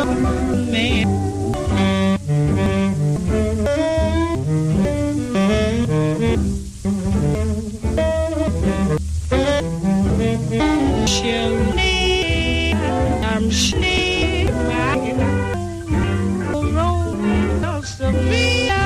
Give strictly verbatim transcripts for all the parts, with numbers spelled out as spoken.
man. Cheri, I'm Sheba. Romeo Sevilla.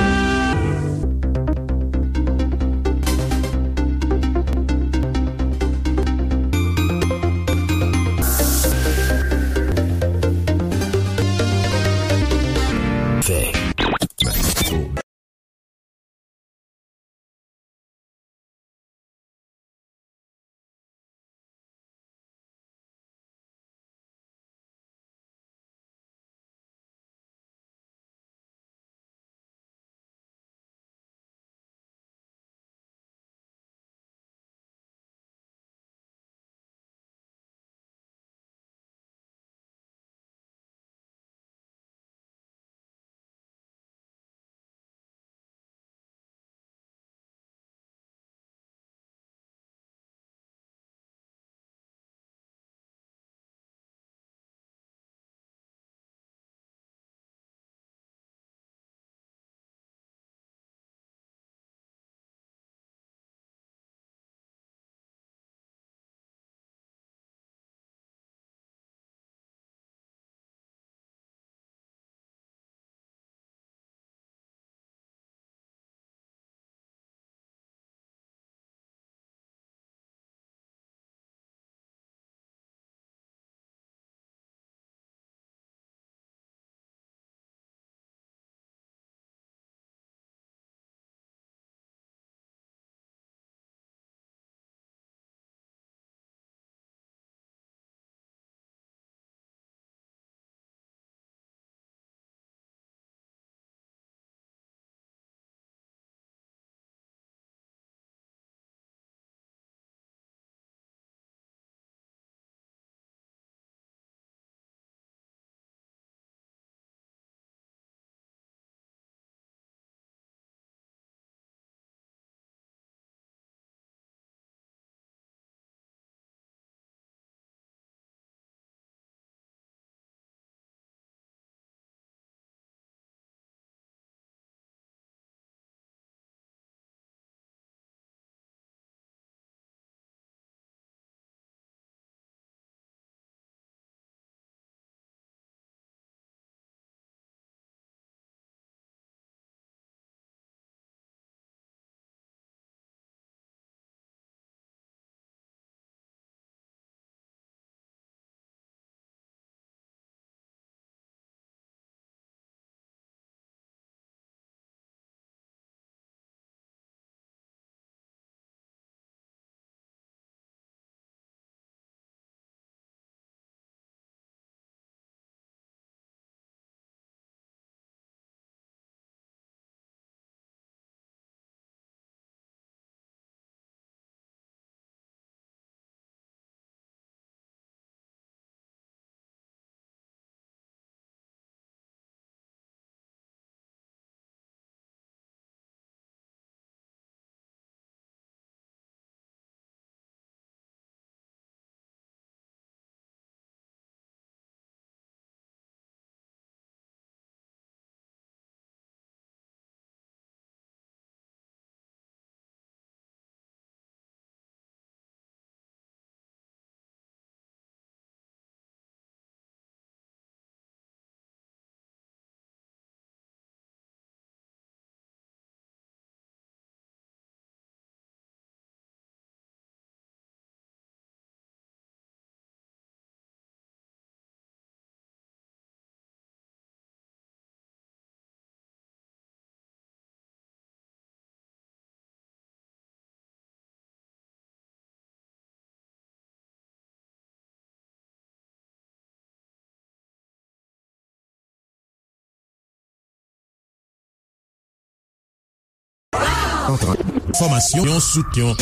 Fòmasyon sou tyon.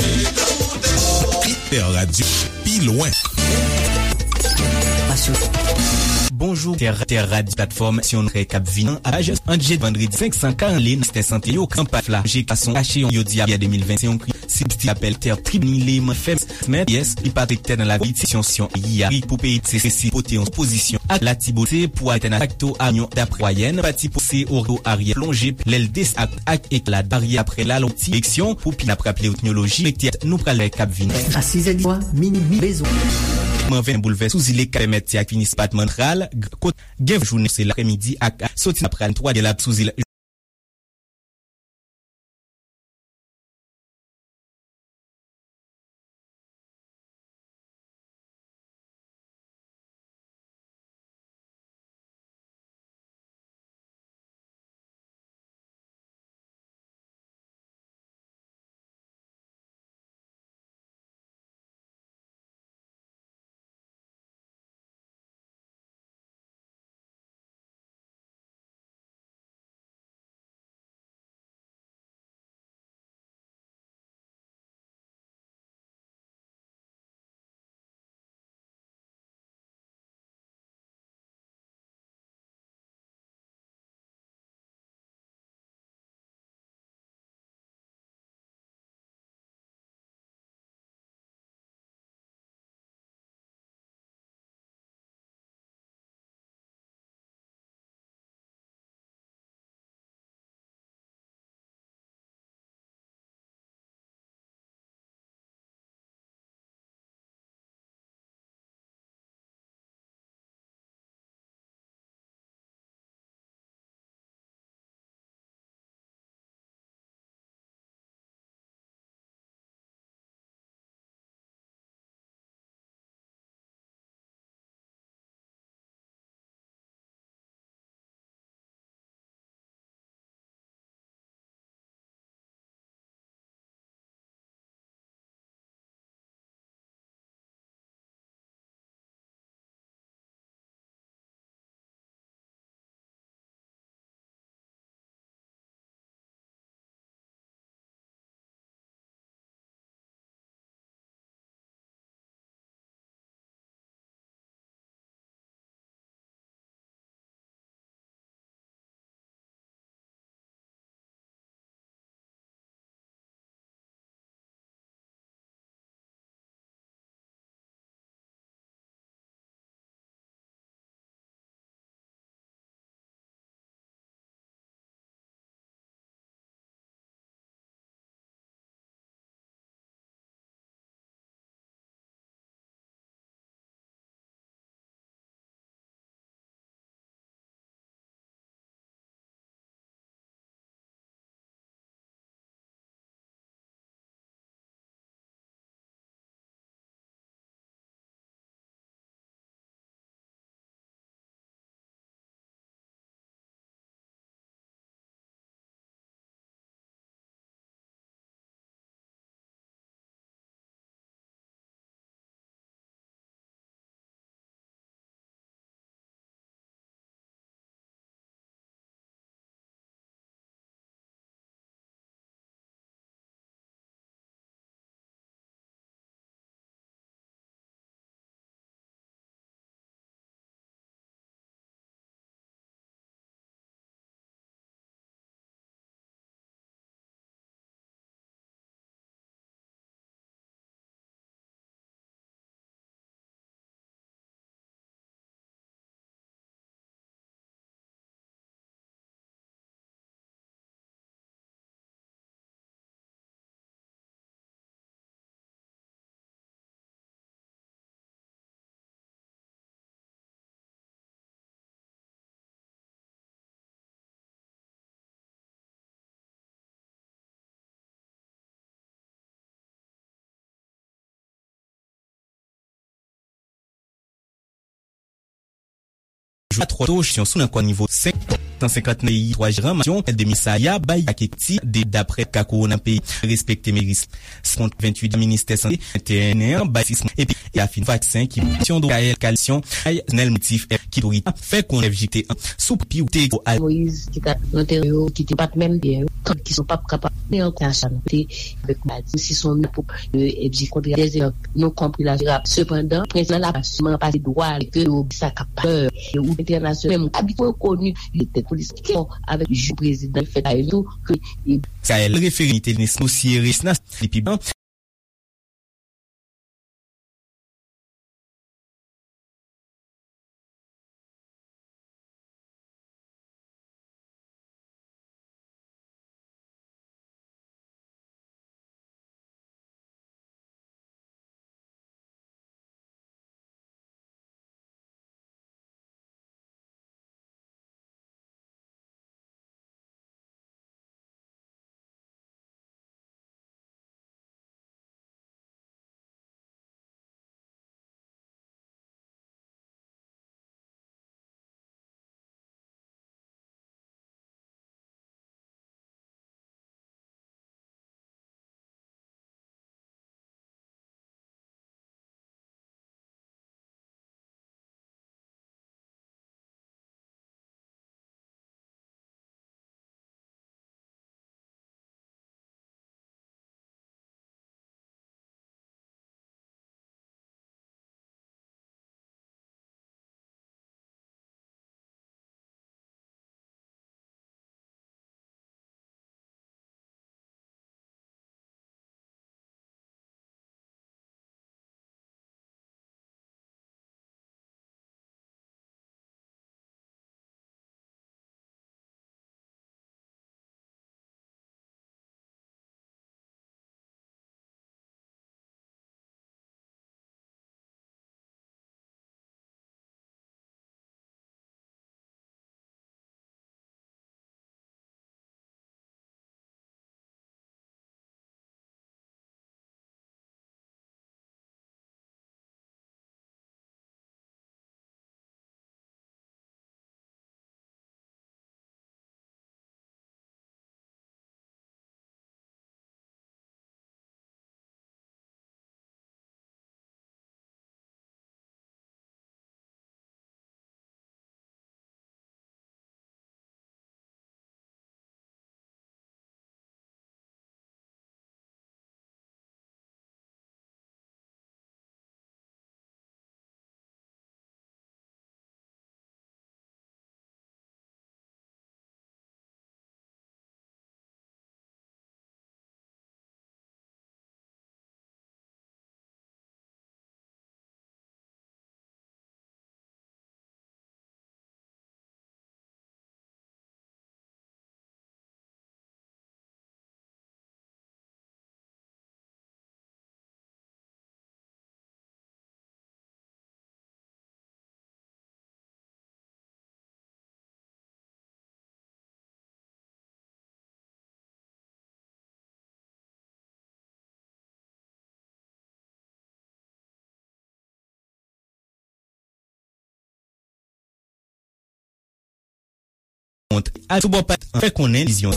Hiper Radio, pi lwen. Bonjou, Tè, Tè Rad, platfòm syon trè k ap vini an, a jès an dje vandredi senk san karant lè nan sèktè sante yo, kanpay la, je gason kache yon yodi a de mil vennsenk, yon kri, sibsti apèl tè, tribinile, man fèm, mèt, yès, li pa trèktè nan la politik, syon, syon, yi a, pou peyi, se, se, si, pote yon pozisyon, ak Latibonit, se pou atè nan fakto, a yon, daprè wayèn, pati, pou, se, oro, aryè, plonje, lè l des, ak, ak, ek, la, aryè, aprè, la, lonti, eleksyon, pou, pi, n ap raple, etnoloji, nou pral, k ap vini. A sizè di swa, mini, mi, bezwen. Mwen ven boulvès sou zile ka pèmèt ti ak finis patman tral, kot gen jounen se laprèmidi ak soti apral twa de la sou zile. Jou a twa to sou nan kò nivo senk. san senkant peyi twa jeran masyon de misaya bay ak ekti de daprè ka kowona peyi respekte meris. Kont venntuit ministè sante venteyen an bay sis mwa epi e afin vaksen ki misyon do kayèl kalisyon ay nèl motif ki torita fè konnen jite an sou pi ou te al Moyiz ki ta nan teren yo ki te pat menm byen yo kant ki son pap kapab ne an kachan te avèk maladi si son pou ebji kontre dèzè non konpri la rap sepandan prens nan la pa sèlman pase dwa ke yo sa k ap pè yo ou entènasyonal menm abitye koni li tèt polis ke avèk jou prezidan fèt a yo ke Kayèl refere li te nesnosye resnas li pi ban Kont ak sou bò pat an fè konnen vizyon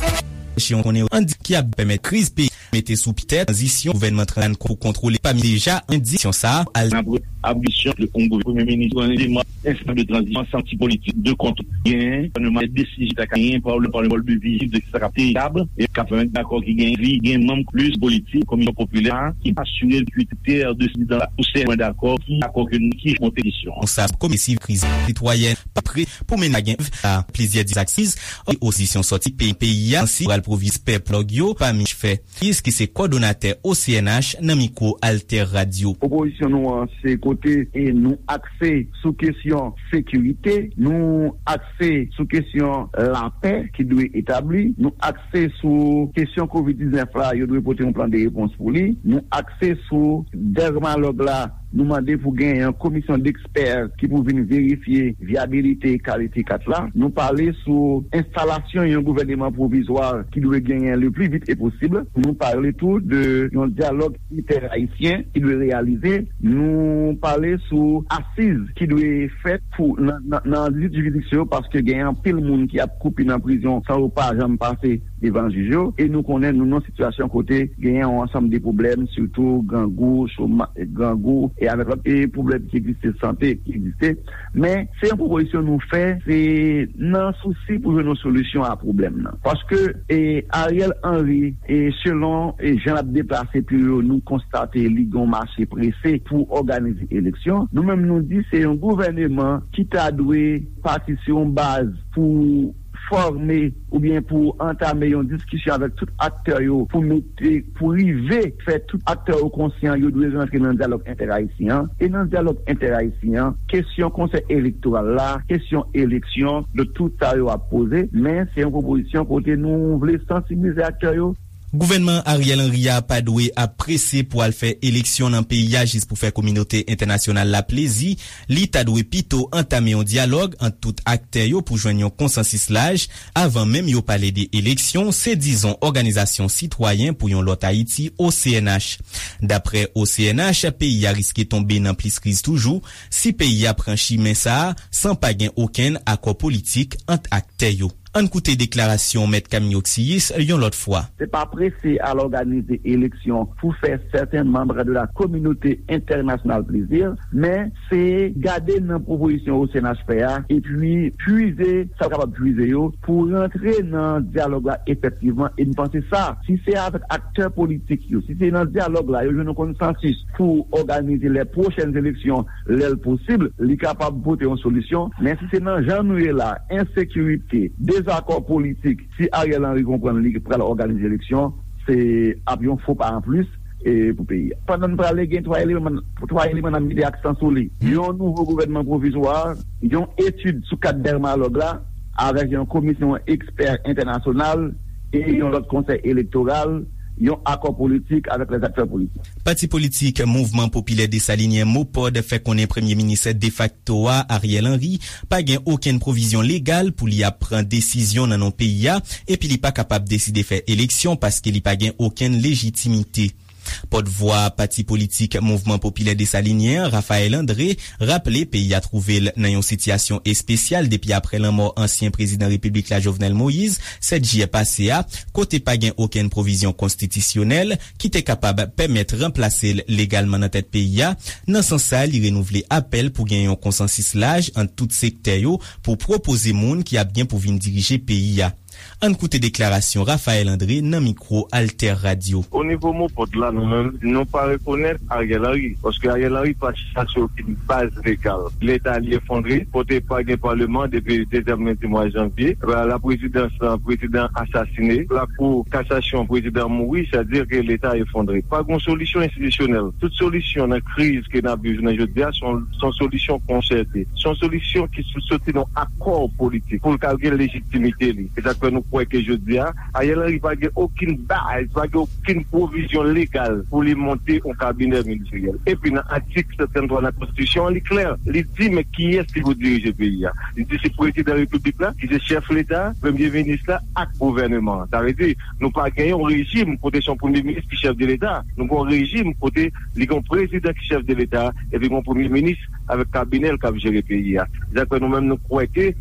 Washington konnen an di ki ap pèmèt kriz peyi mete sou pitè tranzisyon gouvènman tranzisyon pou kontwole pami deja an di sa al. Apre ablisyon de yon gouvènman premye minis yon eleman enstans de tranzisyon santi politik de kont gen gouvènman desizyon ta ka gen pa le pa le mòd de vizyon de sa k ap te tab e k ap pèmèt dakò ki gen vi gen manm plis politik komisyon popilè ki asire ki tè de sidan pou sè dakò ki dakò ke nou ki monte kesyon. Konsa komisyon kriz sitwayèn pa pre pou mennen gen a plizyè dizaksiz opozisyon sòti peyi peyi a ansi pral pwoviz pèp lòg yo pa mich fè Fils ki se kòdonatè O C N H nan mikwo Alter Radio. Pwopozisyon nou an se kote e nou akse sou kesyon sekirite, nou akse sou kesyon lapè ki dwe etabli, nou akse sou kesyon kovid diznèf la yo dwe pote yon plan de repons pou li, nou akse sou dèmalòg la Nou mande pou genyen yon komisyon dekspè ki pou vin verifye vyabilite kalite kat la. Nou pale sou enstalasyon yon gouvèneman pwovizwa ki dwe genyen le pli vit e posib. Nou pale tou de yon dyalòg entè-ayisyen ki dwe reyalize. Nou pale sou asiz ki dwe fèt pou nan, nan, nan dizuit jiridiksyon yo, paske gen anpil moun ki ap koupi nan prizon san yo pa janm pase devan jij yo. E nou konnen nou nan sitiyasyon kote genyen yon ansanm de pwoblèm, sitou grangou, choma-, grangou, e avèk lòt e pwoblèm ki egziste, sante ki egziste. Men, se yon pwopozisyon nou fè, se nan sousi pou jwenn yon solisyon a pwoblèm nan. Paske, e, Ariel Henry, e, selon, e, jan l ap deplase pye yo, nou konstate li gen yon mache prese pou òganize eleksyon. Nou menm, nou di se yon gouvèneman ki ta dwe pati sou yon baz pou fòme oubyen pou antame yon diskisyon avèk tout aktè yo pou mete, pou rive fè tout aktè yo konsyan yo dwe rantre nan dyalòg entè-ayisyen an. E nan dyalòg entè-ayisyen an, kesyon konsèy elektoral la, kesyon eleksyon, de tout sa yo ap poze, men se yon pwopozisyon kote nou vle sansibilize aktè yo. Gouvènman Ariel Henry a pa dwe ap prese pou al fè eleksyon nan peyi a jis pou fè kominote entènasyonal la plezi. Li ta dwe pito antame yon dyalòg ant tout aktè yo pou jwenn yon konsansis laj avan menm yo pale de eleksyon, se dizon Òganizasyon Sitwayen pou yon Lòt Ayiti, O C N H. Daprè O C N H, peyi a riske tonbe nan plis kriz toujou si peyi a pran chimen sa a san pa gen okenn akò politik ant aktè yo. Ann koute deklarasyon Mèt Camille Oxiyis yon lòt fwa. Se pa prese al òganize eleksyon pou fè sèten manm de la kominote entènasyonal plezi, men se gade nan pwopozisyon O C N H fè a, epi pwize sa l kapab pwize yo pou rantre nan dyalòg la efektivman. E m panse sa, si se avèk aktè politik yo, si se nan dyalòg la, yo jwenn yon konsansis pou òganize lè pwochèn eleksyon, lè l posib, li kapab pote yon solisyon. Men si se nan jan nou ye la, ensekirite, dezakò politik, si Ariel Henry konprann li pral òganize eleksyon, se ap yon fo pa anplis, e, pou peyi a. Pandan n prale, gen twa eleman, twa eleman nan mete aksan sou li. Yon nouvo gouvènman pwovizwa, yon etid sou kad dèmalòg la, avèk yon komisyon ekspè entènasyonal e yon lòt konsèy elektoral, yon akò politik avèk lèzaktè politik. Pati politik Mouvman Popilè Desalinyen, MOPOD, fè konnen premye minis defakto a, Ariel Henry, pa gen okenn pwovizyon legal pou li ap pran desizyon nan non peyi a, epi li pa kapab deside fè eleksyon paske li pa gen okenn lejitimite. Pòtvwa pati politik Mouvman Popilè Desalinyen an, Raphaël André, raple peyi a twouve l nan yon sitiyasyon espesyal depi aprè lanmò ansyen prezidan repiblik la, Jovenel Moïse, sèt jiyè pase a, kote pa gen okenn pwovizyon konstitisyonèl ki te kapab pèmèt ranplase l legalman nan tèt peyi a. Nan sans sa, li renouvle apèl pou gen yon konsansis laj ant tout sektè yo pou pwopoze moun ki ap gen pou vin dirije peyi a. Ann koute deklarasyon Raphaël André nan mikwo Alter Radio. O nivo MOPOD la, nou menm, nou pa rekonèt Ariel Henry, paske Ariel Henry pa chita sou okenn baz legal. Leta li efondre, kote pa gen paleman depi dezyèm lendi mwa janvye. La prezidans, prezidan asasine. Lakou kasasyon, prezidan mouri, sa di ke leta efondre. Pa gen solisyon enstitisyonèl. Tout solisyon nan kriz ke n ap viv jounen jodi a, se yon, se yon solisyon konsète. Se yon solisyon ki sou-, soti nan akò politik pou l ka gen lejitimite li. E sa k fè nou kwè ke jodi a, Ariel Henry pa gen okenn baz, pa gen okenn pwovizyon legal pou li monte yon kabinè ministeryèl. Epi nan atik sèt sèt twa nan konstitisyon an, li klè. Li di, men kiyès ki pou dirije peyi a? Li di se prezidan repiblik la, ki se chèf leta, premye minis la, ak gouvèneman an. Sa vle di, nou pa gen yon rejim kote se yon premye minis ki chèf de leta. Nou gen yon rejim kote li gen yon prezidan ki chèf de leta, epi gen yon premye minis avèk kabinè l k ap jere peyi a. Se sa k fè nou menm nou kwè ke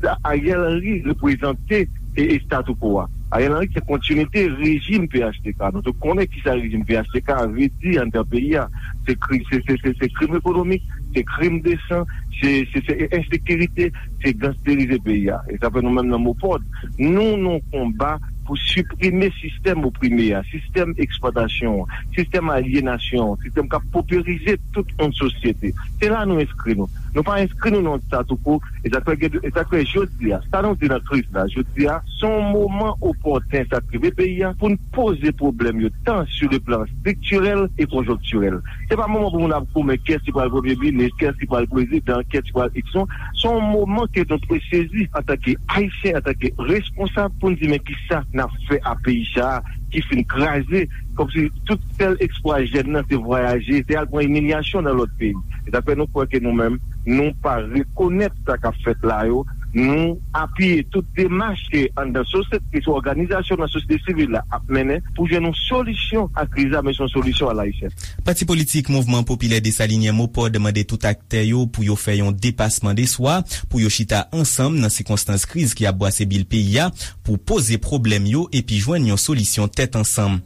sa Ariel Henry reprezante e, e statu quo a. Ariel Henry se kontinite rejim P H T K. Nou tout konnen kisa rejim P H T K vle di anndan peyi a. Se kri-, se, se, se, se krim ekonomik, se krim de san, se, se, se ensekirite, se gangsterize peyi a. E sa fè nou menm nan MOPOD, nou, nou konba pou siprime sistèm oprime a, sistèm eksplwatasyon an, sistèm alyenasyon an, sistèm k ap poperize tout yon sosyete. Se la nou enskri nou. Nou pa enskri nou nan yon statu quo, e sa k fè gen, e sa k fè jodi a, sa nou di nan kriz la, jodi a, se yon moman opòtèn sa k rive peyi a pou n poze pwoblèm yo, tan sur le plan striktirèl e konjonktirèl. Se pa moman pou moun ap goumen kiyès ki pral premye minis, kiyès ki pral prezidan, kiyès ki pral iks non. Se yon moman ke nou dwe sezi antanke Ayisyen, antanke responsab, pou n di men kisa n ap fè a peyi sa a, ki fin kraze, kòmsi tout sèl espwa jèn nan se vwayaje, se al pran imilyasyon nan lòt peyi. E sa fè nou kwè ke nou menm, nou pa rekonèt sa k ap fèt la yo, nou apiye tout demach ke anndan sosyete, ke òganizasyon nan sosyete sivil la ap mennen pou jwenn yon solisyon a kriz la, men se yon solisyon alayisyèn. Pati politik Mouvman Popilè Desalinyen, MOPOD, mande tout aktè yo pou yo fè yon depasman de swa, pou yo chita ansanm nan sikonstans kriz ki ap bwase bil peyi a, pou poze pwoblèm yo epi jwenn yon solisyon tèt ansanm.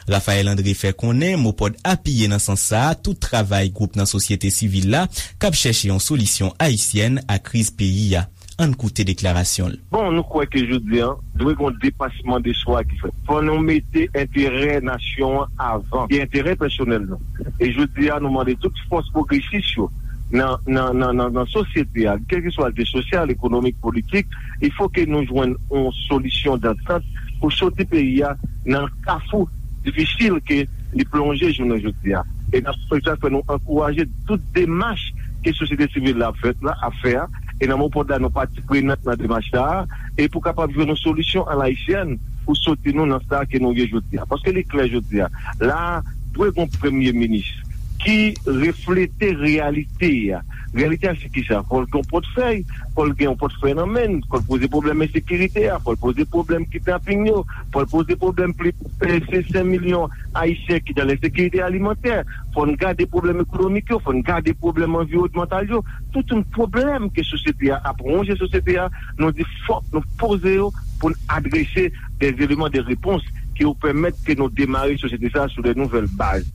Raphaël André fè konnen MOPOD apiye nan sans sa a tout travay gwoup nan sosyete sivil la k ap chèche yon solisyon ayisyèn a kriz peyi a. Ann koute deklarasyon l. Bon, nou kwè ke jodi a, dwe gen yon depasman de swa ki fèt. Fò nou mete enterè nasyon an avan ke enterè pèsonèl nou. E jodi a, nou mande tout fòs pwogresis yo nan, nan, nan, nan, nan sosyete a, kèlkeswa l te sosyal, ekonomik, politik, il fo ke nou jwenn yon solisyon dantant pou soti peyi a nan kafou difisil ke li plonje jounen jodi a. E n ap, se sa k fè nou ankouraje tout demach ke sosyete sivil la ap fèt la, ap fè a. E nan MOPOD la, nou pati prenant nan demach sa a, e pou kapab jwenn yon solisyon alayisyèn pou soti nou nan sa ke nou ye jodi a. Paske li klè jodi a, la dwe gen yon premye minis ki reflete reyalite a. Reyalite a se kisa? Fò l gen yon pòtfèy, fò l gen yon pòtfèy nan men l, fò l poze pwoblèm ensekirite a, fò l poze pwoblèm kidnaping yo, fò l poze pwoblèm plis pase senk milyon Ayisyen ki nan lensekirite alimantè, fò n gade pwoblèm ekonomik yo, fò n gade pwoblèm anviwònmantal yo, tout yon pwoblèm ke sosyete a ap wonje sosyete a, nou di fòk nou poze yo pou n adrese des éléments de réponse ki yo pèmèt ke nou demare sosyete sa a sou de nouvèl baz.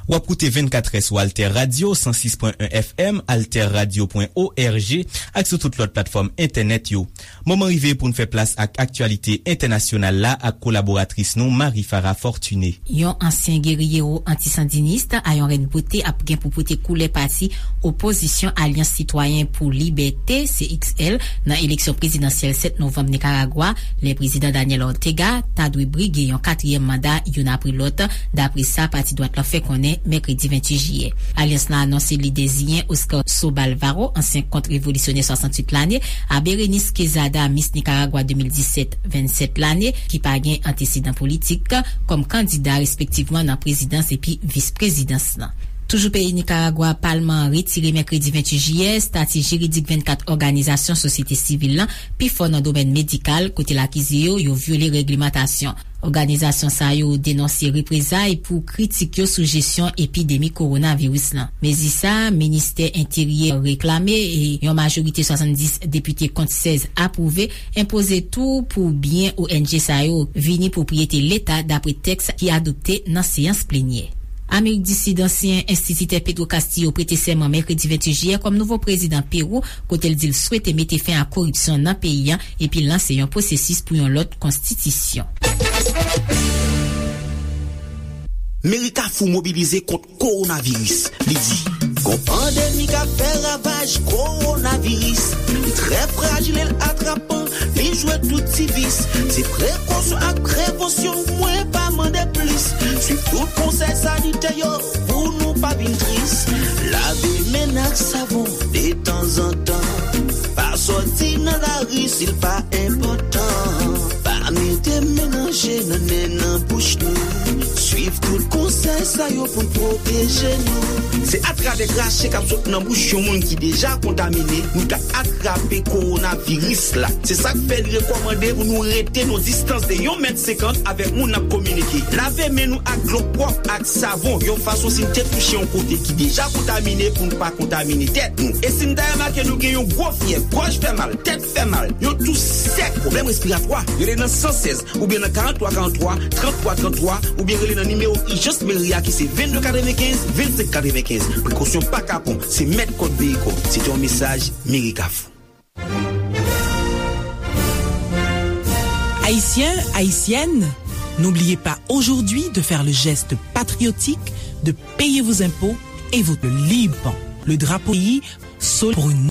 W ap koute vennkatrè sou Alter Radio, san sis pwen en F M, alterradio pwen org, ak sou tout lòt platfòm entènèt yo. Moman rive pou n fè plas ak aktyalite entènasyonal la ak kolaboratris nou, Marie Farah Fortuné. Yon ansyen geriyero antisandinis, Ayon Reine Beauté, ap gen pou pote koulè pati opozisyon Alyans Sitwayen pou Libète, C X L, nan eleksyon prezidansyèl sèt novanm Nikaragwa, lè prezidan Daniel Ortega ta dwe brige yon katriyèm manda youn apre lòt, dapre sa pati dwat lan fè konnen mèkredi venntuit jiyè. Alyans lan anonse li deziyen Oscar Sobalvaro, ansyen kont-revolisyonè swasanntuit lane, a Berenice Quezada, Miss Nicaragua de mil disèt, vennsèt lane, ki pa gen antesedan politik, kòm kandida respektivman nan prezidans epi vis-prezidans lan. Toujou peyi Nikaragwa, palman an retire mèkredi venntuit jiyè estati jiridik vennkat òganizasyon sosyete sivil lan, pifò nan domèn medikal, kote l akize yo, yo vyole règlemantasyon. Òganizasyon sa yo denonse reprezay pou kritik yo sou jesyon epidemi kowonaviris lan. Mezi sa a, ministè enteryè reklame e yon majorite swasanndis depite kont sèz apwouve, enpoze tou pou byen O N G sa yo vini pwopriyete Leta, dapre tèks ki adopte nan seyans plenyè. Amerik di Sid, ansyen enstititè Pedro Castillo prete sèman mèkredi venntuit jiyè kòm nouvo prezidan Pewou, kote l di l swete mete fen a koripsyon nan peyi a epi lanse yon pwosesis pou yon lòt konstitisyon. Meri Kafou mobilize kont kowonaviris. Li di, gon pandemi k ap fè ravaj, kowonaviris. Li trè frajil e l atrapan, li jwe tout ti vis. Se prekosyon ak prevansyon, mwen pa mande plis. Swiv tout konsèy sanitè yo pou nou pa vin tris. Lave men n ak savon detanzantan. Pa sòti nan lari si l pa enpòtan. Pa mete men nan je, nan nen, nan bouch nou. Swiv tout konsèy sa yo pou n pwoteje nou. Se atravè krache k ap sot nan bouch yon moun ki deja kontamine, nou ka atrape kowonaviris la. Se sa k fè li rekòmande pou nou rete nan distans de yon mèt senkant avèk moun n ap kominike. Lave men nou ak dlo pwòp ak savon, yon fason si n te touche yon kote ki deja kontamine pou n pa kontamine tèt nou. E si n ta remake nou gen yon gwo fyèv, gòj fè mal, tèt fè mal, yon tous sèk, pwoblèm respiratwa, rele nan san sèz oubyen nan karant twa karant twa, trant twa trant twa, oubyen rele nan nimewo ijans meri a ki se vennde katrevenkenz, vennsenk katrevenkenz. Prekosyon pa kapon, se mèt kòd veye kò w. Se te yon mesaj Meri Kafou. Haïtiens, Haïtiennes, n'oubliez pas aujourd'hui de faire le geste patriotique de payer vos impôts et vos liban. Le drapeau pays sol pour une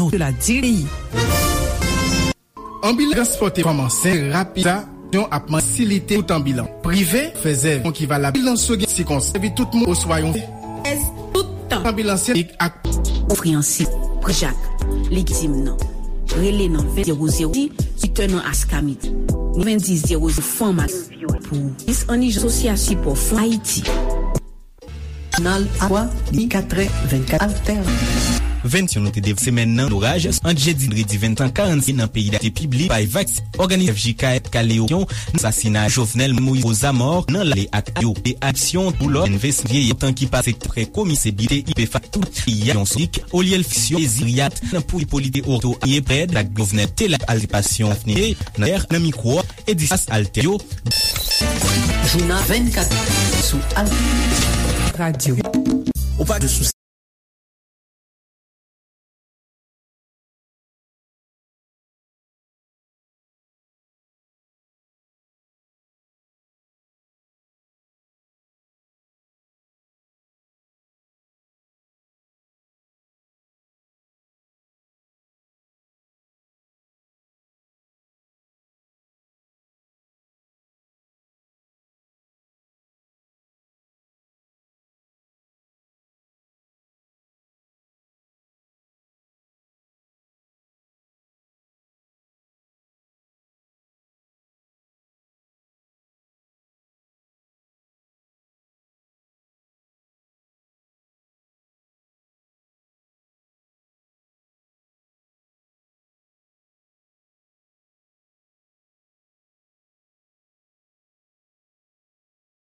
de la diri. Anbilans transpòte fanm ansent rapid sa yon ap fasilite tout anbilans prive fè zèv ki valab anbilans yo gen sikonstans epi tout moun oswa yon tout tan anbilans yo ak ofri ansi prijak legitim nan rele nan ven zewo zewo di twitter nan askamit ven di zewo zewo fanm ak pou dis an ijan sosyal sipò fon ayiti. Jounal a twa, li katrè vennkat Alter. Vennyon nou te dev semèn nan loraj ant jedi vandredi venntan karann nan peyi dayiti piblik bay vaks òganizasyon F J K F Kaleosyon nan sasina Jovenel Moïse Ozamor nan lale ak yo de aksyon pou lò envestigye tan ki pase prè komise bite ipefa tout yon solik olye l fiksyon eziriyat nan pou polite orto ye prèd ak Jovenel te la altipasyon afnite nan mikwo Edifas Alter yo. Jounal vennkat sou Alter Radio. Ou pa de sou